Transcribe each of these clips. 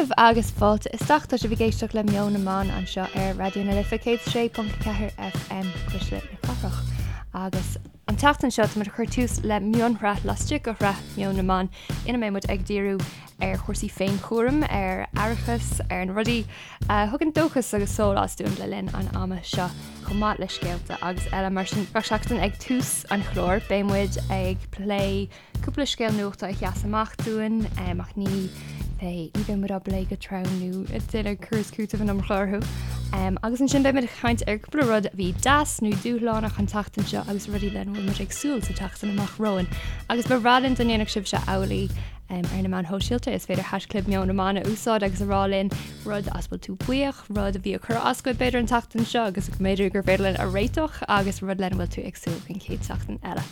daoibh agus fáilte isteach. Tá sibh ag éisteacht le Meon na mBan anseo ar Raidió na Life 106.4 FM, Cuisle na Cathrach. Agus an tseachtain seo táimid ag cur tús le mionshraith laistigh de shraith Meon na mBan ina mbeidh muid ag díriú ar chúrsaí féinchúraim, ar aireachas, ar na rudaí a thugann dóchas agus sólás dúinn le linn an ama seo, chomh maith le scéalta agus eile. Mar sin, gach seachtain ag tús an chláir beidh muid ag plé Cúpla scéal nuachta a sheas amach dúinn, ach ní bheidh, ní bheidh muid á bplé go trom nó ag déanamh cur is cúiteamh an iomarca orthu. Agus ansin beidh muid ag caint ar cúpla rud a bhí deas nó dúshlánach an tseachtain seo agus rudaí lena bhfuil muid ag súil sa tseachtain amach romhainn. Agus ba bhreá linn dá ndéanfadh sibhse amhlaidh ar na meáin shóisialta. Is féidir haischlib Meon na mBan a úsáid agus a rá linn rud as bhfuil tú buíoch, rud a bhí ag cur as duit b'fhéidir an tseachtain seo agus go mb'fhéidir gur féidir linn a réiteach agus rud lena bhfuil tú ag súil don chéad seachtain eile.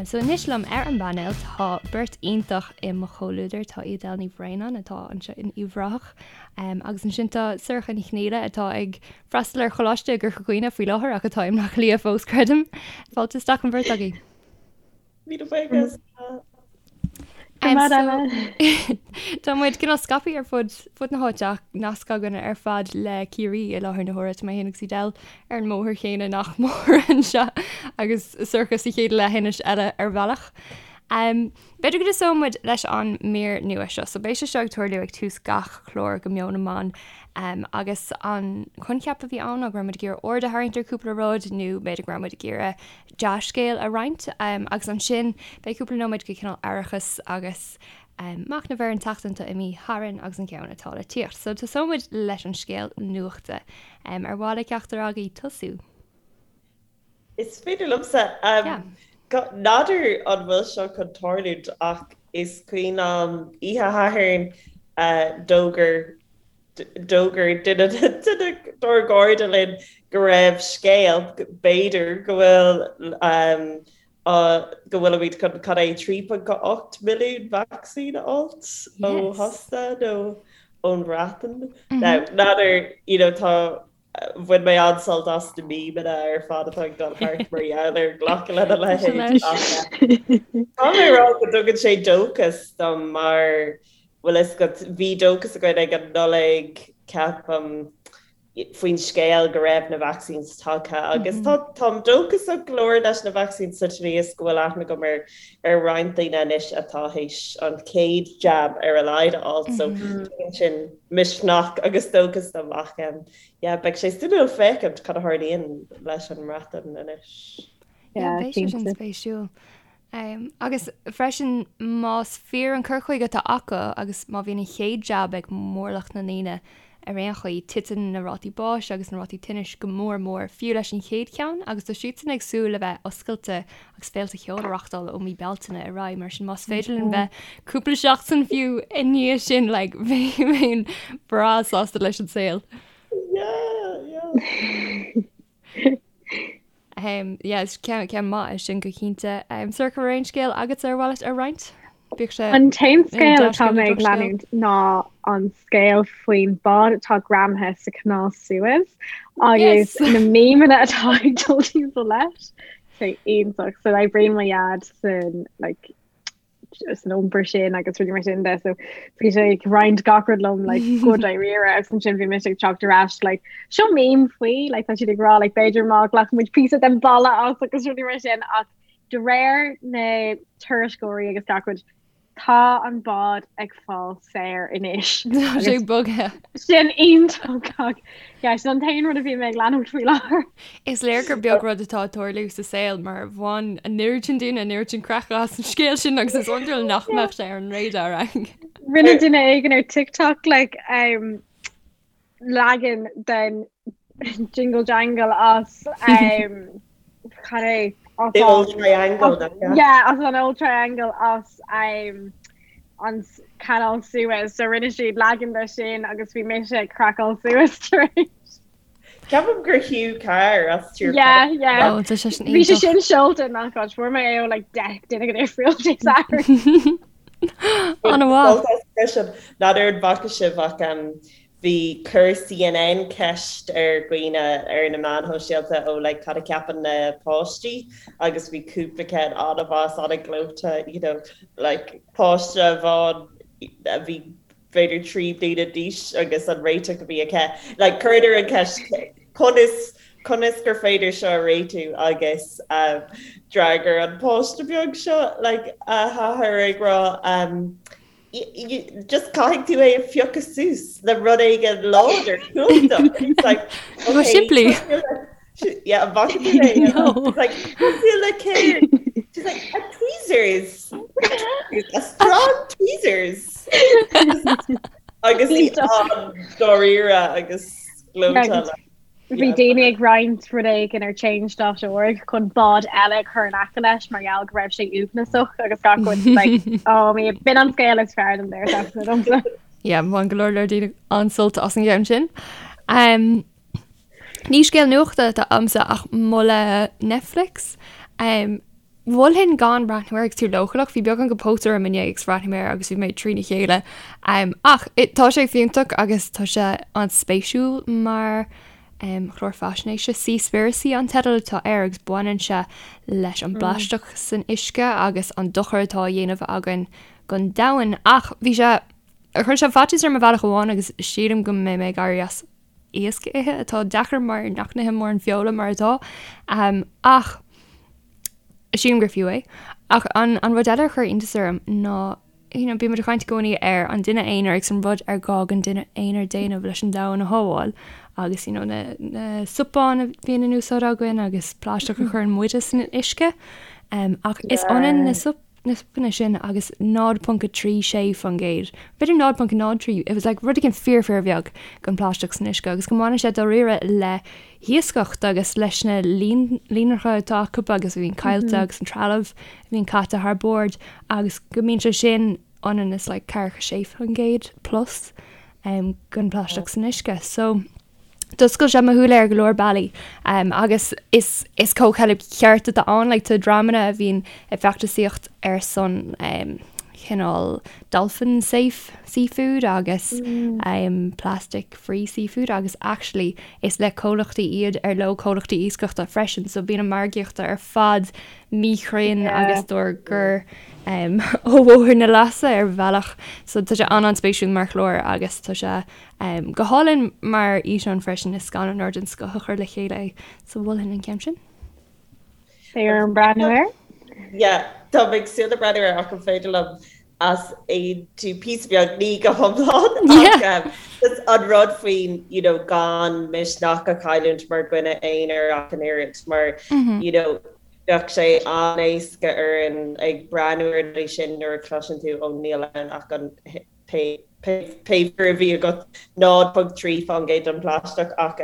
So anois liom ar an bpainéal tá beirt iontach i mo chomhluadar, tá Edel Ní Bhraonáin atá anseo in Uíbh Ráthach agus ansin tá Sorcha Ní Chonghaile atá ag freastal ar choláiste i gCorca Dhuibhne faoi láthair ach atá i mBleá Cliath fós, creidim. Fáilte isteach an bheirt agaibh. Míle buíochas. Tá muid cineál scaipthe ar fud fud na háite ach nasc againn ar fad le Ciarraí i láthair na huaire. Tá mé féin agus Edel ar an mbóthar chéanna nach mór anseo agus Sorcha sa chéad leithinis eile ar bhealach. B'fhéidir go dtosóidh muid leis an mír nua seo. So beidh sé seo ag tarlú ag tús gach clár de Meon na mBan agus an coincheap a bhí ann ná go raibh muid ag iarraidh aird a tharraingt ar cúpla rud nó b'fhéidir go raibh muid ag iarraidh dea-scéal a roinnt agus ansin beidh cúpla nóiméad de chineál aireachas agus machnamh ar an tseachtain atá imithe tharainn agus an ceann atá le tíocht. So tosóidh muid leis an scéal nuachta. Ar mhaith le ceachtar agaibh tosú? Is féidir liomsa. N'fheadar an bhfuil seo chun tarlúint ach is cuimhin liom oíche Shathairn d'fhógair D'fhógair duine dár gcairde linn go raibh scéal, b'fhéidir, go bhfuil go bhfuilimid chun cad é 3.8 milliún vacsaín a fháilt ó Shasana nó ón Bhreatain. Now, n'fheadar, you know, tá bhain mé an-sult as na memeanna ar fad atá ag dul thart mar gheall ar glacadh lena leithéid. Tá mé ag rá go dtugann sé dóchas dom mar bhfuil fhios agat, bhí dóchas againn ag an Nollaig, ceapaim, faoin scéal go raibh na vaccines tagtha agus tá táim dóchasach go leor leis na vaccines sa tslí is go bhfuil aithne agam ar ar roinnt daoine anois atá théis an chéad jab ar a laghad a fháil so tugann sin misneach agus dóchas dom ach yeah beidh sé suimiúil féachaint cad a tharlaíonn leis an mBreatain anois. Yeah, beidh sé sin spéisiúil. Agus freisin más fíor an cur chuige atá acu agus má bhíonn an chéad jab ag mórlach na ndaoine ar aon chaoi, titeann na rátaí báis agus na rátaí tinnis go mór mór, fiú leis an chéad cheann, agus tá siadsan ag súil le bheith oscailte agus féilte cheoil a reachtáil ó mí Bealtaine ar aghaidh, mar sin más féidir linn bheith cúpla seachtain fiú i ndiaidh sin, like, bheinn breá sásta leis an saol. Yeah, yeah. Yeah, is ceann ceann maith é sin go cinnte. Sorcha, an raibh aon scéal agatsa ar mhaith leat a roinnt? Bíodh sé An t-aon scéal atá mé ag leanúint ná an scéal faoin bád atá greamaithe sa Chanáil Suez agus na memeanna atá ag dul timpeall leis. Sé iontach. So oibríonn mo dhaid san like san iompar sin agus rudaí mar sin de so bhí sé ag roinnt gach rud liom like go dáiríre agus ansin bhí mise ag teacht ar ais like seo meme faoi like tá siad ag rá like b'fhéidir má ghlacann muid píosa den balla as agus rudaí mar sin ach de réir na tuairisceoirí agus gach rud tá an bád ag fáil saor anois. Tá sé bogtha. Sin iontach. Yeah, sin an t-aon rud a bhí mé ag leanúint faoi láthair. Is léir gur beag rud atá ag tarlú sa saol mar bhain an oiread sin daoine an oiread sin craiceadh as an scéal sin agus is iondúil nach mbeadh sé ar an radar againn. Rinne duine éigin ar TikTok like, um, leagan den Jingle Jangle as um, cad é? As The old triangle, nach ea? Yeah, as an old triangle as um, an Canal Suez so rinne siad leagan de sin agus bhí mise ag craiceáil suas tar éis. Ceapaim gur Hugh Carr as Tír Yeah, yeah. Oh, tá sé sin Bhí sé sin seolta nach áit fuair mé é ó like 10 duine go difriúil Dé Sathairn. An-mhaith. Freisin, n'fheadar an bhfaca sibh ach um, bhí chuir CNN ceist ar dhaoine ar na meáin shóisialta ó like cad a cheapann na páistí agus bhí cúpla ceann an-mhaith an-ghleoite you know like páiste amháin a bhí. b'fhéidir 3 bliana d'aois agus an réiteach a bhí aici. Like chuireadar an ceist conas conas gur féidir seo a réitiú agus um, d'fhreagair an páiste beag seo like, a hathair ag rá um, just caithfidh tú é a phiocadh suas le rud éigin láidir cumhachtach. It's like, okay, simplí. Yeah, an bhfaca tú é? No. It's like, cosúil le céard? She's like, a tweezers. A strong tweezers. Agus í an-dáiríre agus gleoite. Bhí daoine ag roinnt rud éigin ar change.org chun bád eile a chur in aice leis mar gheall go raibh sé uaigneasach agus gach rud like, oh, me, b'in an scéal is fearr den deireadh seachtaine domsa. Yeah, bhain go leor leor daoine an-sult as an gceann sin. Um, Ní scéal nuachta atá agamsa ach moladh Netflix. Um, mholfainn gan breathnú air agus tú leochaileach, bhí beagán de póit orm inné agus bhreathnaigh mé air agus bhí mé trína chéile. Um, ach it, tá sé fiúntach agus tá sé an-spéisiúil mar um, chlár faisnéise. Seaspiracy an teideal atá air agus baineann sé leis an bplaisteach san uisce agus an dochar atá á dhéanamh againn don domhan. Ach bhí sé, chuir sé faitíos orm ar bhealach amháin agus sílim go mbeidh mé ag éirí as iasc a ithe atá deacair mar nach n-ithim mórán feola mar atá. Ach sílim gur fiú é. Ach an, an rud eile a chuir iontas orm ná you know, bímid ag caint i gcónaí ar an duine aonair agus an rud ar gá don duine aonair déanamh leis an domhan a shábháil agus you know, na, na cupáin a bhíonn in úsáid againn agus plaisteach a chuireann muide san uisce. Um, ach is ionann na sup na supanna sin agus 0.36%, b'fhéidir 0.03, it was like rud éigin fíor fíor bheag den phlaisteach san uisce agus go mbaineann sé dáiríre le hiascaireacht agus leis na líonracha atá acu agus a bhíonn caillte agus an trealamh a bhíonn caite thar bord agus go mbíonn sé sin ionann is like 46% plus um, den phlaisteach san uisce. So, D'oscail sé mo shúile ar go leor bealaí agus is is comhcheilg cheart atá ann, like tá dreamanna a bhíonn ag feachtasaíocht ar son cineál dolphin safe seafood agus plastic free seafood agus actually is le comhlachtaí iad ar leo comhlachtaí iascaireachta freisin so bíonn an margaíocht ar fad míchruinn agus dár gcur ó bhóthar na leasa ar bhealach so tá sé an-an-spéisiúil mar chlár agus tá sé Go hálainn mar fhíseán freisin, is scannánóir den scoth a chuir le chéile é, so mholfainn an ceann sin. Beidh orm breathnú air. Yeah, tá mé ag súil le breathnú air ach an féidir liom easaontú píosa beag, ní go hiomlán ach just an rud faoin you know gan misneach a chailliúint mar dhuine aonair ach an oiread mar you know bheadh sé an-éasca orainn ag breathnú ar na rudaí sin nuair a chloiseann tú ó níl ann ach an pé figiúr a bhí agat, 0.3% den phlaisteach ach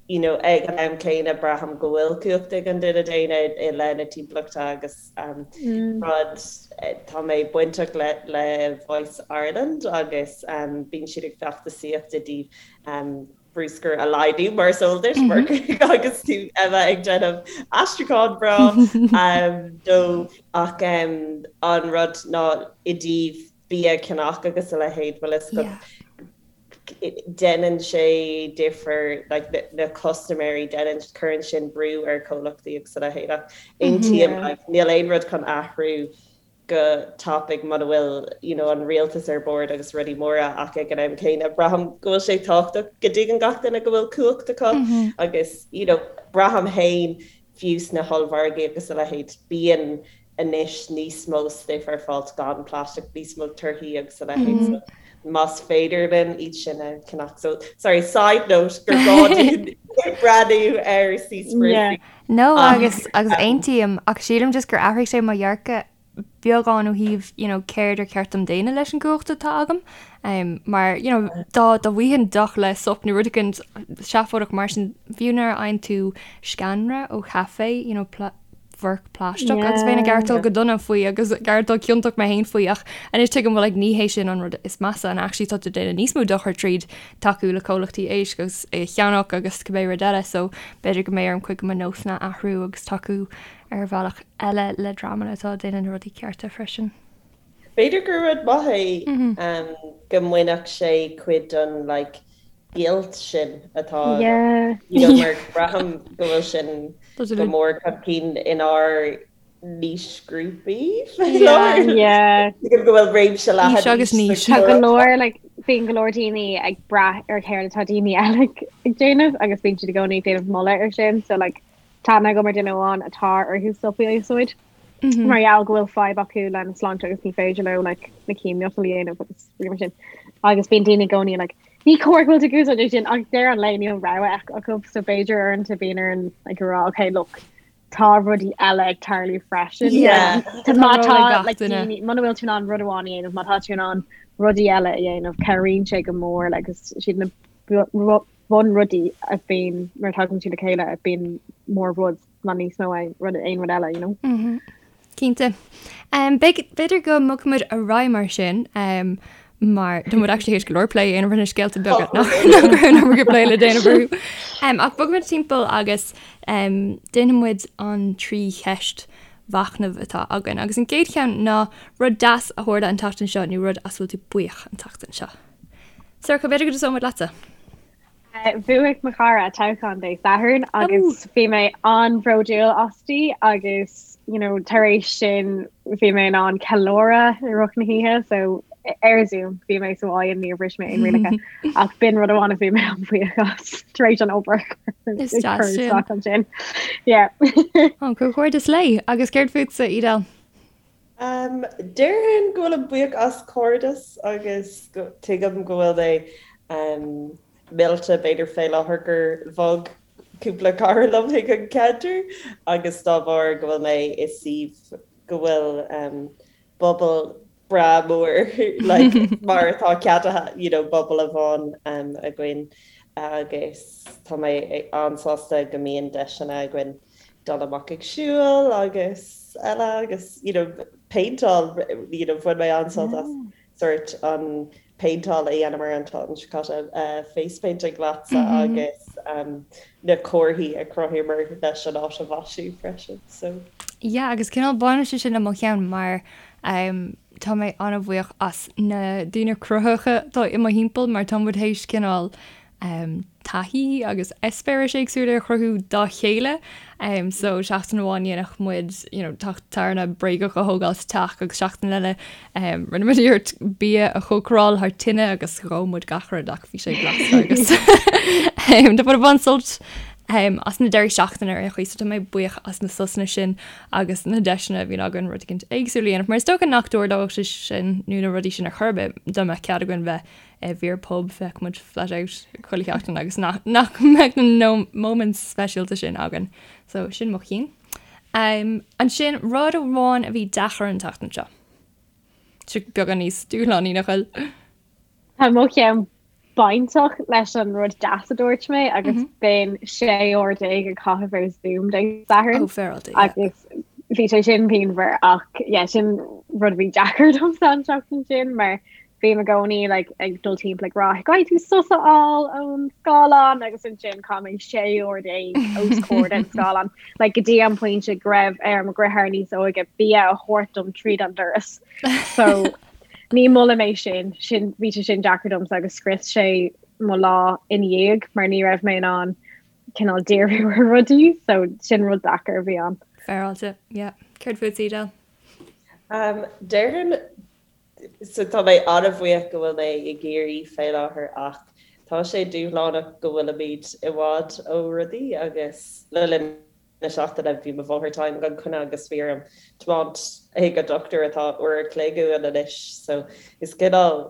you know ag an am céanna braithim go bhfuil cumhacht ag an duine daonna i leith na timpeallachta agus rud tá mé bainteach le le Voice Ireland agus bíonn siad ag feachtasaíocht i dtaobh bruscar a laghdú mar is eol duit mar agus tú Emma ag déanamh aistriúchán breá dóibh ach an rud ná i dtaobh bia a cheannach agus a leithéid, bhfuil fhios agat, déanann sé difear, like, na custaiméirí, déanann, cuireann sin brú ar chomhlachtaí agus a leithéid ach aontaím, like, níl aon rud chun athrú go tapaidh muna bhfuil, you know, an rialtas ar bord agus rudaí móra ach ag an am céanna braithim go bhfuil sé tábhachtach go dtuigeann gach duine go bhfuil cumhacht acu agus, you know, braithim féin fiú sna hollmhargaí agus a leithéid, bíonn anois níos mó stuif ar fáil gan plaisteach, níos mó torthaí agus a leithéid so más féidir linn iad sin a cheannach. So, sorry, side note gur gá dúinn breathnú ar Seaspiracy. No agus agus aontaím ach sílim just gur athraigh sé mo dhearcadh beagán ó thaobh you know céard ar cheart dom déanamh leis an gcumhacht atá agam um, mar you know dá dá bhfaighinn deoch le sop nó rud éigin seafóideach mar sin fiú nuair a fhaigheann tú sceanra ó chaife you know forc plaisteach agus bheinn ag aireachtáil go dona faoi agus ag aireachtáil ciontach mé féin faoi ach anois tuigim well like ní hé sin an rud is measa and actually tá tú ag déanamh níos mó dochair tríd tacú le comhlachtaí éisc agus é a cheannach agus cibé rud eile so b'fhéidir go mbeidh orm cuid de mo nósanna a athrú agus tacú ar bhealach eile le dreamanna atá ag déanamh na rudaí cearta freisin. B'fhéidir gur rud maith é go mbainfeadh sé cuid den like guilt sin atá you know mar braithim go bhfuil sin go mór chun cinn inár. Aoisghrúpaí faoi láthair. Tuigim go bhfuil réimse leathan Aois agus n-aois. Tá go leor like bíonn go leor daoine ag brath ar céard atá daoine eile ag déanamh agus bíonn siad i gcónaí ag déanamh moladh ar sin so like tá aithne agam ar duine amháin atá orthu stop a úsáid mar gheall go bhfuil fadhb acu lena sláinte agus ní féidir leo like na chéimiotal a dhéanamh agus rudaí mar sin. Agus bíonn daoine i gcónaí like ní cóir go bhfuil tú ag úsáid é sin ach deireadh an lae níl rogha acu so b'fhéidir uaireanta bíonn orainn like a rá okay look tá rudaí eile ag tarlú freisin. Yeah. Tá Tá má ról tá ag gach like, duine. daoine muna bhfuil tú in ann rud amháin a dhéanamh, má tá tú in ann rudaí eile a dhéanamh, cabhraíonn sé go mór like, agus siad na bu- ru- bunrudaí a bhíonn nuair a tagann siad le chéile a bíonn mór rud ná níos mó aon rud aon rud eile, you know? Mhm. Cinnte. Um, b'fhéidir b'fhéidir go mbogfaimid ar aghaidh mar sin, um, mar tá muid actually théis go leor plé a dhéanamh ar na scéalta beaga nach nach raibh an iomarca plé le déanamh orthu. Um, ach bogfaimid timpeall agus um, déanfaidh muid an trí cheist mhachnaimh atá againn. Agus an gcéad cheann ná rud deas a tharla an tseachtain seo nó rud as a bhfuil tú buíoch an tseachtain seo. Sorcha, b'fhéidir go dtosóidh muid leatsa. Bhuaigh mo chara toghchán Dé Sathairn agus bhí mé an-bhródúil asti agus you know, tar éis sin bhí mé in ann ceiliúradh i rith na hoíche so ar Zoom bhí mé sa bhaile níor bhris mé aon rialacha ach b'in rud amháin a bhí mé an-bhuíoch as tar éis an obair Is deas sin. ansin. Yeah. Ó, comhghairdeas léi. Agus céard fútsa, Edel? Um, déarfainn go bhfuilim buíoch as cairdeas agus go, tuigim go bhfuil mé um, millte b'fhéidir fé láthair gur bhog cúpla cara liom chuig an ceantar agus dá bharr go bhfuil mé i suíomh go bhfuil um, bubble breá mór like, mar atá ceadaithe you know, bubble amháin um, againn agus tá mé an-sásta go mbíonn deiseanna againn dul amach ag siúl agus eile agus you know péinteáil you know bhain mé an-sult as sort an péinteáil a dhéanamar an tseachtain seo caite uh, face painting leatsa mm -hmm. agus um, na comharthaí a chruthaíomar leis an áit a mhaisiú freisin so. Yeah, agus cineál baineann sé sin le mo cheann mar um, tá mé an-bhuíoch as na daoine cruthaitheacha atá i mo thimpeall mar tá muid théis cineál taithí agus eispéiris éagsúla a chruthú dá chéile. So seachtain amháin dhéanfadh muid you know teach tairne bréagach a thógáil sa teach agus seachtain eile rinne muid iarracht bia a chócaráil thar tine agus dhóigh muid gach rud ach bhí sé blasta agus tá muid ag baint sult as na deirí seachtaine ar aon chaoi so tá mé buíoch as na sosanna sin agus na deiseanna a bhíonn againn rud éicint éagsúil a dhéanamh mar is dócha nach dtarlódh sé sin nó na rudaí sin ar chor ar bith dá mbeadh cead againn bheith i bhfíor-phub, bheadh muid flat out chuile sheachtain agus nach nach mbeadh na moments speisialta sin againn. So sin mo chinn. Um, ansin rud amháin a bhí deacair an tseachtain seo. Seo beagán níos dúshlánaí nach bhfuil. Tá mo cheann bainteach leis an rud deas a dúirt mé agus mm -hmm. b'in 16 uair ag caitheamh ar Zoom Dé Sathairn. Oh, féaráilte, yeah. Agus bhí sé sin pianmhar ach yeah, sin rud a bhí deacair domsa an tseachtain sin mar Bím i gcónaí like ag dul timpeall ag rá caithfidh tú sos a fháil ón scáileán agus ansin chaith mé 16 uair os comhair den scáileán like go dtí an pointe go raibh ar mo dheartháir níos óige bia a thabhairt dom tríd an doras. So ní molaim é sin sin bhí sé sin deacair domsa agus scrios sé mo lá ina dhiaidh mar ní raibh mé in ann cineál díriú ar rudaí so sin rud deacair a bhí ann. Féaráilte, yeah. Céard fút, Edel? Um, déarfainn So tá mé an-bhuíoch go bhfuil mé i gCiarraí fé láthair ach tá sé dúshlánach go bhfuilimid i bhfad ó rudaí agus le linn na seachtaine bhí mo mháthair tinn gan choinne agus bhí orm tiomáint chuig an dochtúir atá uair a chloig uainn anois so is cineál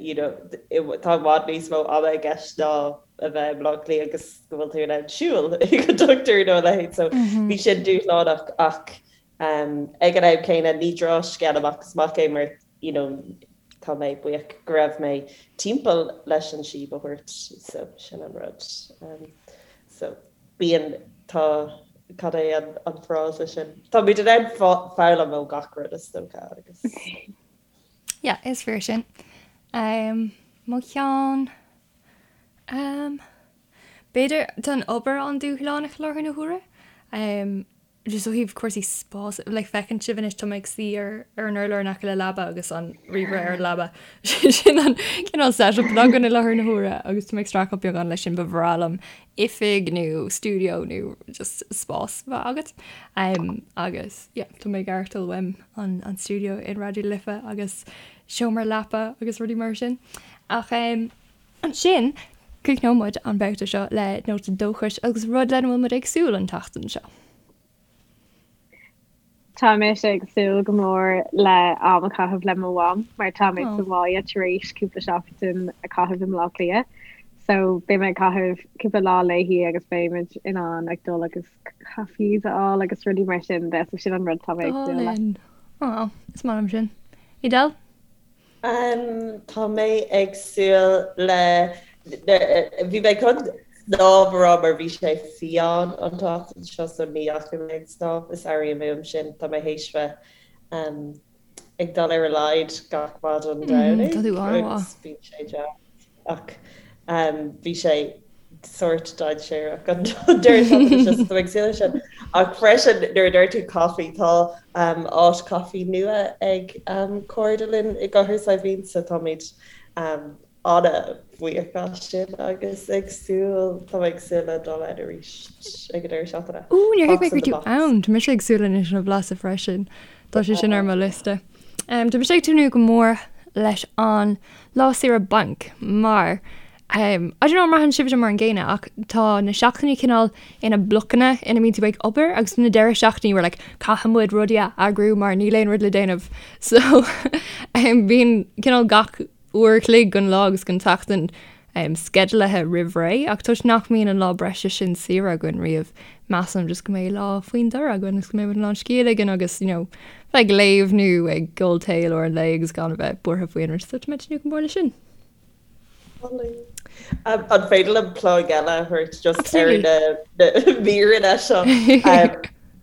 you know tá i bhfad níos mó ama i gceist ná a bheith i mBleá Cliath agus go bhfuil tú in ann siúl chuig an dochtúir nó a leithéid so bhí sin dúshlánach ach Ag an am céanna, ní drochscéal amach is amach é mar you know tá mé buíoch go raibh mé timpeall leis an síob a thabhairt so sin an rud. So bíonn, tá, cad é an an frása sin? Táimid in ann foghlaim ó gach rud is dócha agus. Yeah, is fíor sin. Mo cheann, b'fhéidir, tá an obair an-dúshlánach i láthair na huaire. Just ó thaobh cúrsaí spás, like feiceann sibh anois tá mé ag suí ar ar an urlár in aice le leaba agus an ríomhaire ar an leaba. Sin an cineál setup atá againn i láthair na huaire agus tá mé ag streachailt beagán leis sin ba bhreá liom oifig nó stiúideo nó just spás bheith agat. Um, agus yeah, tá mé ag aireachtáil uaim an, an stiúideo in Raidió na Life agus seomra leapa agus rudaí mar sin. Ach um, Ansin, críochnóidh muid an babhta seo le nóta dóchais agus rud lena bhfuil muid ag súil an tseachtain seo. Tá mise ag súil go mór le am a chaitheamh le mo mham mar tá mé sa bhaile tar éis cúpla seachtain a chaitheamh i mBleá Cliath. So beidh mé ag caitheamh cúpla lá léi agus beidh muid in ann ag dul agus cafés a fháil agus rudaí mar sin de, so sin an rud tá mé ag súil le. Á, is maith liom sin. Edel? Tá mé ag súil le, bhí mé chun snámh a rá mar bhí sé fiáin an tseachtain seo so ní dheachaigh mé ag snámh, is airím uaim sin, tá mé théis bheith ag dul ar a laghad gach maidin Domhnaigh agus bíonn sé deas. Ach bhí sé sórt dainséarach an deireadh seachtaine seo, so tá mé ag súil leis sin. Ach freisin, nuair a dúirt tú caife, tá áit caife nua ag cairde linn i gCathair Saidhbhín, so táimid an-bhuíoch as sin agus ag súil, tá mé ag súil le dul ann arís ag an deireadh seachtaine. Ó, níor thuig mé go raibh tú ann! Tá mise ag súil anois lena bhlaiseadh freisin. Tá sé sin ar mo liosta. Tá mise ag tnúth go mór leis an lá saoire bainc mar I don't know an mbraitheann sibhse mar an gcéanna ach tá na seachtainí cineál ina blocanna ina mbíonn tú ag obair agus na deireadh seachtainí we're like caithfidh muid rudaí a eagrú mar níl aon rud le déanamh so bíonn cineál gach uair a chloig den lá agus den tseachtain sceidealaithe roimh ré ach toisc nach mbíonn an lá breise sin saoire againn riamh, measaim just go mbeidh lá faoin dtor againn agus go mbeidh muid in ann scíth a ligean agus you know bheith ag léamh nó ag ól tae i lár an lae agus gan a bheith buartha faoi aon rud so tá mé ag tnúth go mór leis sin. An féidir liom plug eile a thabhairt just ar na míreanna seo?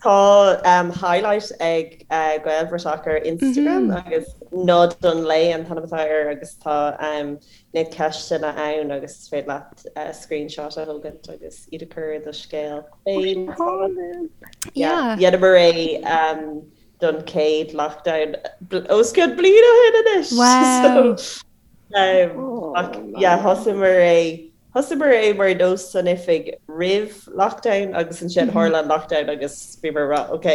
Tá highlight ag Gaelbhratach ar Instagram agus Nod an Lae an t-ainm atá air agus tá na ceisteanna ann agus is féidir leat screenshot a thógaint agus iad a chur i do scéal féin. Dheineamar é don chéad lockdown os cionn bliain ó shin anois. Wow! Ach yeah, thosaíomar é Thosaíomar é mar nós san oifig roimh lockdown agus ansin tharla an lockdown agus bhíomar ag rá ok,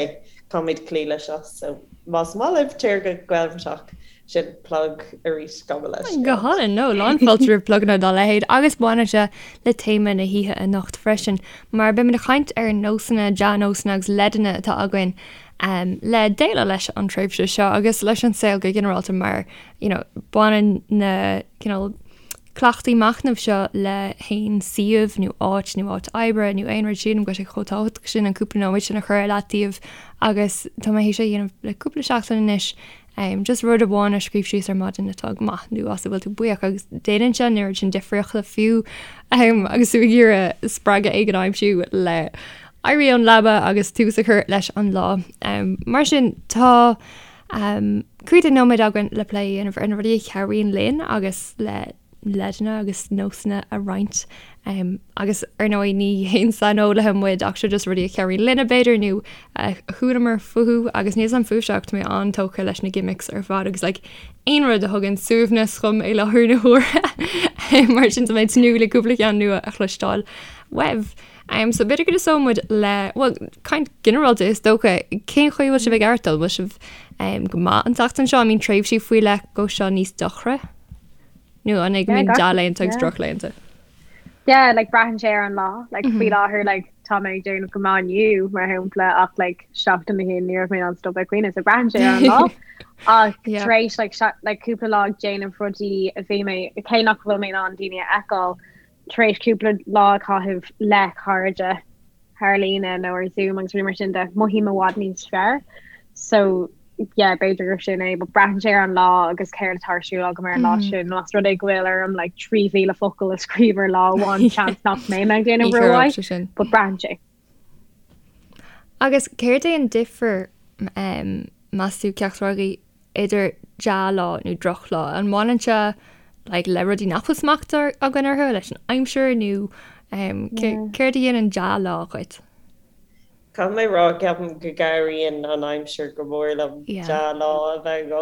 caithfimid cloí leis seo so más maith libh téir go Gaelbhratach, sin plug arís gabh mo leithscéal. Go hálainn, no, lán fáilte roimh pluganna dá leithéid agus baineann sé le téama na hoíche anocht freisin mar beimid ag caint ar nósanna, dea-nósanna agus leideanna atá againn le déileáil leis an tréimhse seo agus leis an saol go ginearálta mar you know baineann na cineál cleachtaí machnaimh seo le haon suíomh nó áit nó áit oibre nó aon rud sílim go bhfuil sé chomh tábhachtach sin an cúpla nóiméad sin a chur ar leataobh agus tá mé théis é a dhéanamh le cúpla seachtain anois just rud amháin a scríobh síos ar maidin atá go maith nó as a bhfuil tú buíoch agus déanann sé an oiread sin difríochta fiú agus tú ag iarraidh spreagadh éigin a aimsiú le éirí ón leaba agus tús a chur leis an lá. Mar sin tá Cúpla nóiméad againn le plé a dhéanamh ar na rudaí a chabhraíonn linn agus le leideanna agus nósanna a roinnt. Agus ar ndóigh ní haon saineolaithe muid ach seo just rudaí a chabhraíonn linne b'fhéidir nó a chualamar fúthu agus níl 's a'm fúibhse ach tá mé an-tógtha leis na gimmicks ar fad agus like aon rud a thugann suaimhneas dhom i láthair na huaire mar sin tá mé ag tnúth le cúpla ceann nua a chloisteáil uaibh. So b'fhéidir go dtosóidh muid le, bhuel, caint ginearálta is dócha, cén chaoi a bhfuil sibh ag aireachtáil? Bhfuil sibh go maith an tseachtain seo? An mbíonn tréimhsí faoi leith go seo níos dochra? Nó an é go mbíonn dea-laethanta agus drochlaethanta? Yeah, like braitheann sé ar an lá. Like faoi láthair like tá mé ag déanamh go maith inniu mar shampla ach like seachtain ó shin ní raibh mé in ann stop ag caoineadh so braitheann sé ar an lá. Ach tar éis like like cúpla lá ag déanamh rudaí a bhí mé cé nach bhfuil mé in ann daoine a fheiceáil tar éis cúpla lá a chaitheamh le cairde thar líne nó ar Zoom agus rudaí mar sin de, mothaím i bhfad níos fearr. So yeah, b'fhéidir gur sin é, but braitheann sé ar an lá agus céard atá ar siúl agam ar an lá sin. Más rud é go bhfuil orm like 3,000 focal a scríobh ar lá amháin, seans nach mbeidh mé ag déanamh rómhaith, but braitheann sé. Agus céard é an difear, meas tú, ceachtar agaibh, idir dea-lá nó drochlá? An mbaineann sé like le rudaí nach bhfuil smacht againn orthu, leis an aimsir nó céard a dhéanann dea-lá dhuit? Caithfidh mé rá, ceapaim go gcabhraíonn an aimsir go mór liom dea-lá a bheith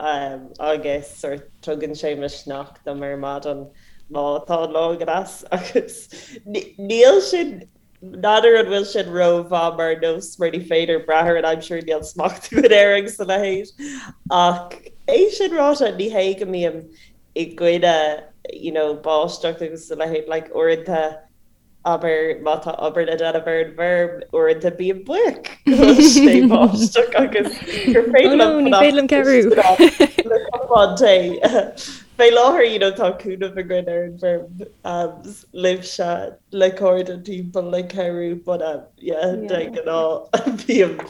agam agus sort tugann sé misneach dom ar maidin má tá an lá go deas agus níl sin, n'fheadar an bhfuil sin rómhaith mar nós mar ní féidir brath ar an aimsir, níl smacht againn air agus a leithéid. Ach é sin ráite, ní hé go mbím i gcoinne you know báisteach agus a leithéid, like uaireanta, Abair má tá obair le déanamh ar an bhfeirm, uaireanta bím buíoch go bhfuil sé báisteach agus gur féidir liom fanacht le cupán tae. Fé láthair you know tá cúnamh againn ar an bhfeirm libhse le cairde timpeall le cabhrú but yeah de ghnáth bím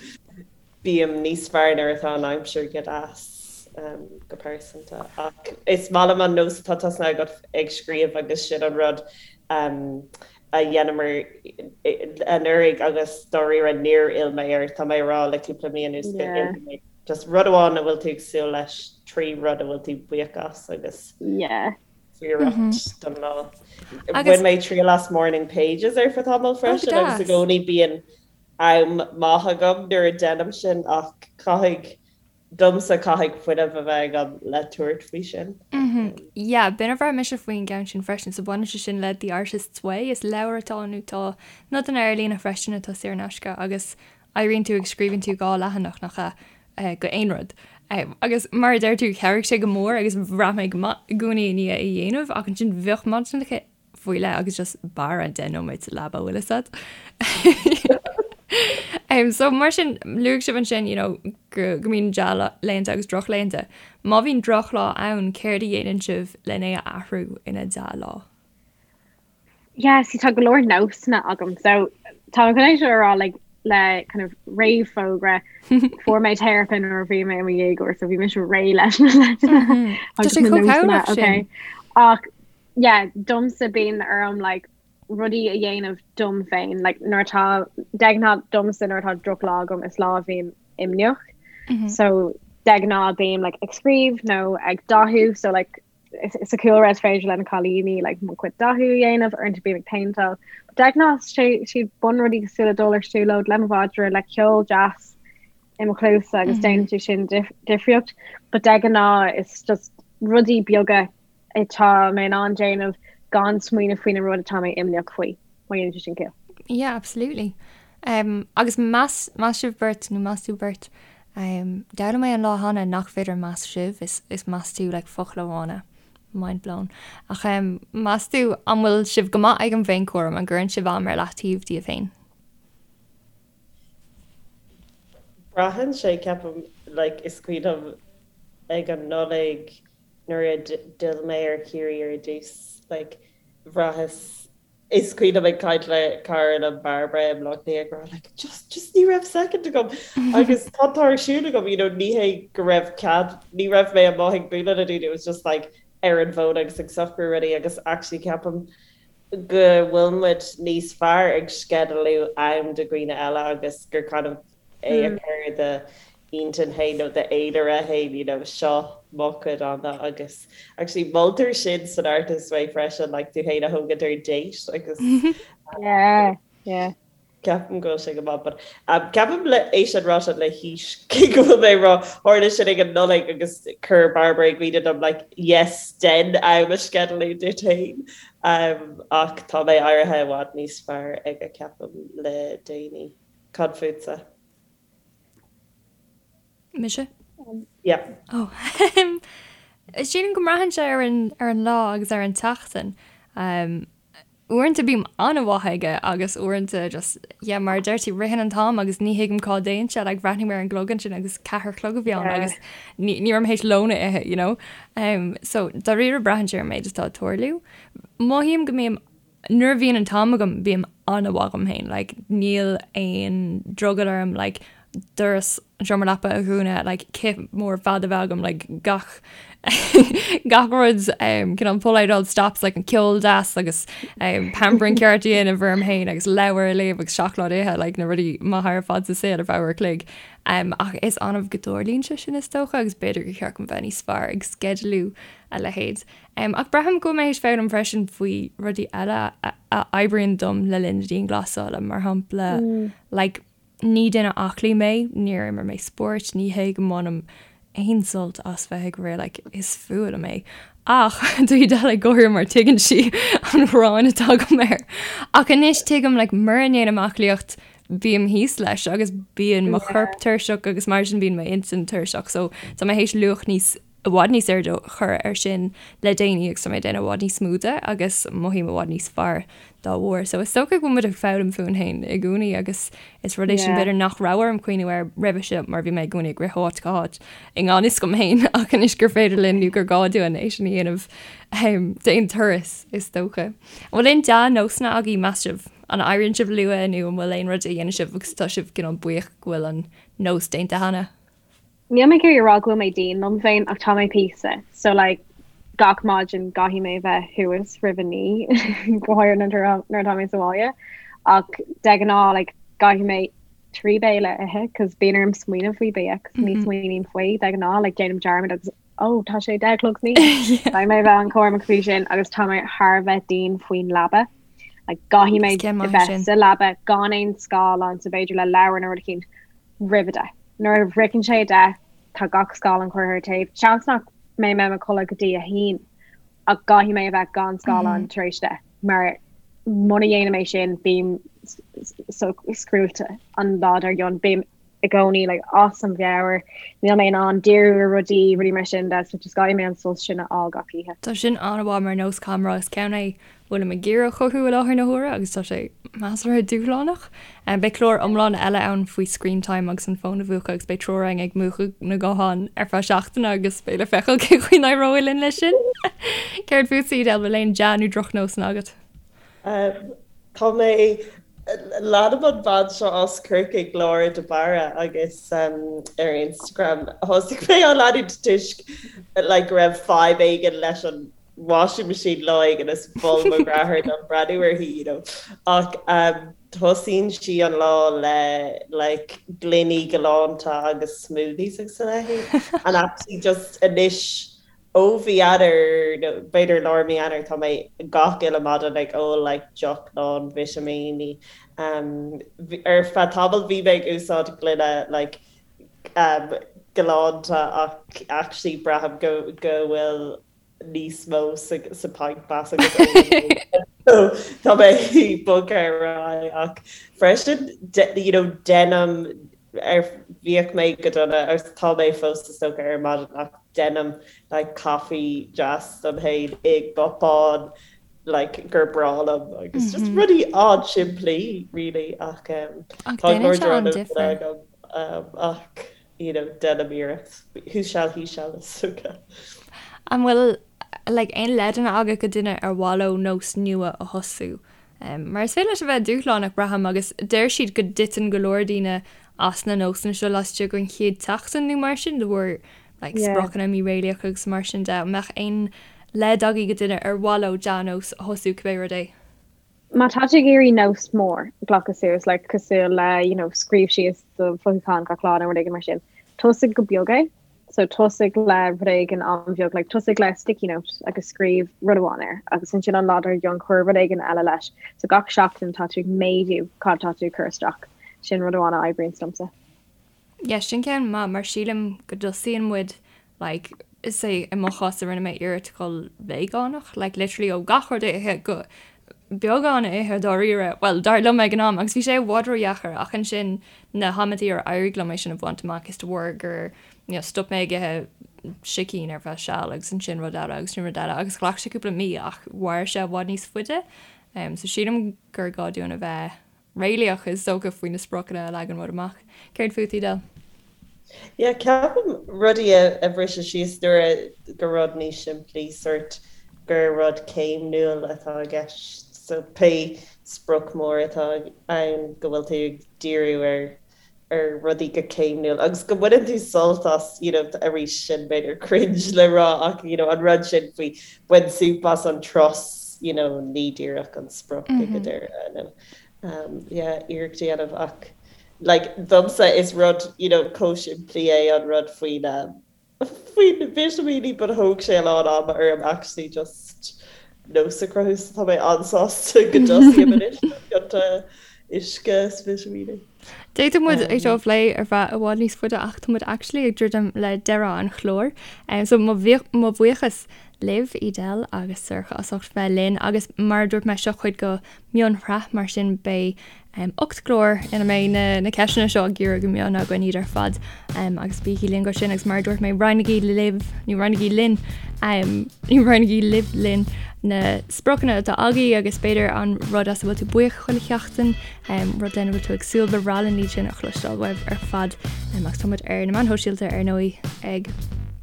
Bím níos fearr nuair atá an aimsir go deas, go pearsanta. Ach is maith liom an nós atá tosnaithe agat ag scríobh agus sin an rud a dheineamar anuraidh agus dáiríre níor fhill mé air, tá mé a rá le cúpla mí anuas go bhfillfidh mé. Just rud amháin a bhfuil tú ag súil leis, 3 rud a bhfuil tú buíoch as agus iarracht don lá. Bhain mé triail as morning pages ar feadh tamaill freisin agus i gcónaí bíonn am maith agam nuair a deinim sin ach caithfidh, domsa, caithfidh fuinneamh a bheith agam le tabhairt faoi sin. Yeah, b'in a bhraith mise faoin gceann sin freisin. So baineann sé sin le The Artist's Way, is leabhar atá ann nó tá nodanna ar líne freisin atá saor in aisce agus éiríonn tú agus scríobhann tú 2 leathanach, nach ea, go aon rud. Agus mar a deir tú, chabhraigh sé go mór agus bhraith mé go maith i gcónaí i ndiaidh é a dhéanamh ach ansin bheadh maidineacha faoi leith agus just b'fhearr 10 nóiméad sa leaba bhfuil fhios a'd. Um, so mar sin luaigh sibh ansin you know, go, go mbíonn dea-laethanta agus drochlaethanta. Má bhíonn drochlá ann, céard a dhéanann sibh len é a athrú ina dea-lá? Yeah, see, tá go leor nósanna agam. So tá mé chun é seo a rá like, le kind of réamhfhógra fuair mé teiripe nuair a bhí mé i mo dhéagóir, so bhí mise réidh leis na leideanna Tá sé chomh cabhrach sin. Ach yeah, domsa bíonn orm like rudaí a dhéanamh dom féin, like nuair atá de ghnáth domsa nuair atá drochlá agam is lá a bhím imníoch. Mm -hmm. So de ghnáth bím like ag scríobh nó ag dathú so like sa chúlra is féidir le na cailíní like mo chuid dathú a dhéanamh uaireanta bím ag péinteáil. De ghnáth sé siad bunrudaí cosúil le dul ar siúlóid le mo mhadra le ceol deas i mo chluasa agus mm -hmm. déanann sé sin difríocht, but de ghnáth is just rudaí beaga atá mé in ann déanamh gan smaoineamh faoin rud atá mé imníoch faoi, má dhéanann sé sin ciall. Yeah, absolutely. Um, agus meas, meas sibh beirt nó meas tú beirt, um, d'fhoghlaim mé an lá cheana nach féidir meas sibh, is, is meas tú like focal amháin é. Mind blown. Ach um, meas tú an bhfuil sibh go maith ag an bhféinchúram, an gcuireann sibh am ar leataobh daoibh féin? Braitheann sé, ceapaim, like, is cuimhin liom ag an Nollaig, Nuair a d'fhill mé ar Chiarraí ar dtús, like, bhraitheas, is cuimhin liom ag caint le cara liom, Barbara, i mBleá Cliath ag rá like, just, just ní raibh second agam agus tá tá ar siúl agam, you know, ní hé go raibh cead, ní raibh mé amuigh ag bualadh le daoine, it was just like ar an bhfón agus ag socrú rudaí agus actually ceapaim go bhfuil muid níos fearr ag sceidealú am do dhaoine eile agus gur kind of é a chur i d'intinn féin nó d'fhéilire féin, you know, seo mo chuid ama agus actually moltar sin san Artist's Way freisin, like tú féin a thógaint ar date agus Yeah, yeah. ceapaim go bhfuil sé go maith but um, ceapaim le é sin ráite le haois cé go bhfuil mé ag rá tharla sin ag an Nollaig agus chuir Barbara i gcuimhne dom like yes déan am a sceidealú duit féin um, ach tá mé éirithe i bhfad níos fearr aige ceapaim le déanaí. Cad fútsa? Mise? Yeah. Oh. Sílim go mbraitheann sé ar an, ar an lá agus ar an tseachtain. Um, uaireanta bím an-mhaith aige agus uaireanta just, yeah, mar a deir tú, ritheann an t-am agus ní thuigim cá dtéann sé, like, bhreathnaigh mé ar an gclog ansin agus ceathair a chlog a bhí ann yeah. agus ní, ní raibh mé théis lón a ithe, you know? Um, so, dáiríre braitheann sé ar an méid atá ag tarlú. Mothaím go mbím Nuair a bhíonn an t-am agam bím an-mhaith dhom féin, like níl aon drogall orm like doras an seomra leapa a dhúnadh, like cith mór fada a bheith agam, like gach gach rud um, cineál pull out all the stops like an ceol deas agus um, pampering ceart a dhéanamh orm féin agus leabhar a léamh agus seacláid a ithe, like na rudaí maithe ar fad sa saol ar feadh uair a chloig. Um, ach is annamh go dtarlaíonn sé sin is dócha agus b'fhéidir gur cheart dom bheith níos fearr ag sceidealú a leithéid. Ach braithim go bhfuil mé théis foghlaim freisin faoi rudaí eile a oibríonn dom le linn na dianghlasála, mar shampla, like, Ní duine aclaí mé, níor imir mé spórt, ní hé go mbainim aon sult as bheith ag rith, like, is fuath liom é. Ach tá Edel ag gáire mar tuigeann sí an ghráin atá agam air. Ach anois tuigim, like, mura ndéanaim aclaíocht, bím thíos leis agus bíonn mo chorp tuirseach agus mar sin bíonn m'intinn tuirseach. So tá mé théis luach níos i bhfad níos airde a chur air sin le déanaí agus tá mé ag déanamh i bhfad níos mó de agus mothaím i bhfad níos fearr dá bharr. So is dócha go bhfuil muid ag foghlaim fúinn féin i gcónaí agus is rud é sin b'fhéidir nach raibh orm cuimhniú air roimhe seo mar bhí mé i gcónaí ag rith ó áit go háit i ngan fhios dom féin ach anois gur féidir linn nó gur gá dúinn é sin a dhéanamh d'aon turas is dócha. An bhfuil aon dea-nósanna agaibh meas sibh? An éiríonn sibh luath nó an bhfuil aon rud a dhéanann sibh agus tá sibh cineál buíoch go bhfuil an nós déanta cheana? Níl mé ag iarraidh a rá go bhfuil mé dian liom féin ach tá mé píosa. So like gach maidin caithfidh mé bheith thuas roimh a naoi go háirithe nuair atá mé sa bhaile. Ach de ghnáth like caithfidh mé 3 béile a ithe cos bíonn orm smaoineamh faoi bia cos ní smaoiním faoi de ghnáth like déanaim dearmad agus oh tá sé 10 a chlog san oíche. Caithfidh mé bheith an-chúramach faoi sin agus tá mé thar a bheith dian faoin leaba. Like caithfidh mé a bheith sa leaba gan aon scáileán so b'fhéidir le leabhar nó rud eicínt roimh a deich. Nuair a shroicheann sé a deich, tá gach scáileán curtha ar taobh. Seans nach mbeidh mé i mo chodladh go dtí a haon, ach caithfidh mé a bheith gan scáileán tar éis deich, mar muna dhéanaim é sin, bím so scrúite an lá dár gcionn. Bím i gcónaí like, as mo mheabhair, níl mé in ann díriú ar rudaí, rudaí mar sin de, so just caithfidh mé an sos sin a fháil gach oíche. Tá sin an-mhaith mar nós caithfidh mé a rá, is ceann é bhfuilim ag iarraidh a chothú i láthair na huaire agus tá sé measartha dúshlánach. Beidh clár iomlán eile ann faoi screen time agus an fón a mhúchadh agus beidh triúr againn ag múchadh na nguthán ar feadh seachtaine agus beidh le feiceáil cén chaoi a n-éireoidh linn leis sin. Céard fútsa, Edel, bhfuil aon dea nó drochnósanna agat? Tá mé, leanaim an bhean seo as Corcaigh, Laura de Barra agus ar Instagram. Thosaigh mé á leanúint toisc like go raibh fadhb éigin leis an washing machine lá éigin is mhol mo dheartháir dom breathnú uirthi, you know. Ach um, tosaíonn sí an lá le like gloiní galánta agus smoothies agus a leithéid. And actually just anois ó mhí Eanáir nó b'fhéidir lár mí Eanáir tá mé gach uile maidin ag ól like deoch lán vitimíní. Um, ar feadh tamaill bhí mé ag úsáid gloine like um, galánta ach actually braithim go go bhfuil níos mó sa pint glass agus tá mé bogtha ar aghaidh ach freisin you know déanaim ar bhíodh mé go dona agus tá mé fós is dócha ar maidin ach déanaim like caife deas dom féin i gcupán like gur breá liom agus just rudaí an-simplí really ach um, tá go leor droch agam um, ach you know, déanaim iarracht. Who shall, he shall is dócha. An bhfuil like, aon leideanna agat go duine ar mhaith leo nós nua a thosú? Um, mar is féidir leis a bheith dúshlánach braithim agus deir siad go dtiteann go leor daoine as na nósanna seo laistigh den chéad tseachtain nó mar sin de bharr like, yeah. spriocanna míréalaíocha agus mar sin de. An mbeadh aon leid agaibh go duine ar mhaith leo dea-nós a thosú cibé rud é? Má tá tú ag iarraidh nós mór a ghlacadh suas, like, cosúil le, you know, scríobh síos do mhothúcháin gach lá nó rud éigin mar sin, tosaigh go beag é. So tosaigh le rud éigin an-bheag, like, tosaigh le sticky note agus scríobh rud amháin air agus ansin an lá dár gcionn cuir rud éigin eile leis. So gach seachtain tá tú ag méadú cad tá tú ag cur isteach. Sin rud amháin a oibríonns domsa. Yeah, sin ceann maith mar sílim go dtosaíonn muid like say i mo chás rinne mé iarracht dhul veigeánach like literally ó gach rud a ithe go beagán a ithe dáiríre, well dar liom ag an am agus bhí sé i bhfad ródheacair ach ansin na hamantaí ar éirigh liom é sin a bhaint amach is de bharr gur you know, stop mé ag ithe sicín ar feadh seal agus ansin rud eile agus sin rud eile agus ghlac sé cúpla mí ach mhair sé i bhfad níos faide. Um, so sílim gur gá dúinn a bheith réalaíoch is dócha faoi na spriocanna a leagann muid amach. Céard fút, Edel? Yeah, ceapaim rudaí a bhriseadh síos nuair a go rud níos simplí, sort gur rud céimniúil atá i gceist. So pé sprioc mór atá ann go bhfuil tú ag díriú ar ar rudaí go céimniúil agus go mbaineann tú sult as, you know, arís sin b'fhéidir cringe le rá ach, you know, an rud sin faoi bain súp as an turas, you know, ní díreach an sprioc ag an deireadh, nó um, yeah, iarracht a dhéanamh ach like, domsa is rud, you know, chomh simplí é an rud faoin um, faoi na vitimíní but thóg sé a lán ama orm actually just nós a chruthú so tá mé an-sásta go dtosaím anois le pionta uisce is vitimíní. D'fhéadfadh muid é seo a phlé ar feadh i bhfad níos faide ach tá muid actually ag druidim le deireadh an chláir. So mo bhuíochas libh, Edel agus Sorcha as ucht bheith linn agus mar a dúirt mé seo cuid de mhionshraith mar sin beidh 8 gclár ina mbeidh na ceisteanna seo á gcíoradh go mion againn iad ar fad agus bígí linn go sin agus mar a dúirt mé roinnigí libh nó roinnigí linn nó roinnigí libh linn na spriocanna atá agaibh agus b'fhéidir an rud as a bhfuil tú buíoch chuile sheachtain, rud lena bhfuil tú ag súil, ba bhreá linn iad sin a chloisteáil uaibh ar fad agus tá muid ar na meáin shóisialta ar ndóigh ag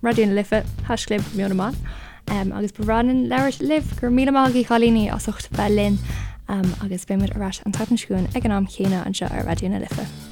Raidió na Life, haischlib Meon na mBan. Agus ba bhreá linn labhairt libh. Go raibh míle maith agaibh a chailíní as ucht bheith linn agus beidh muid ar ais an tseachtain seo chugainn ag an am chéanna anseo ar Raidió na Life.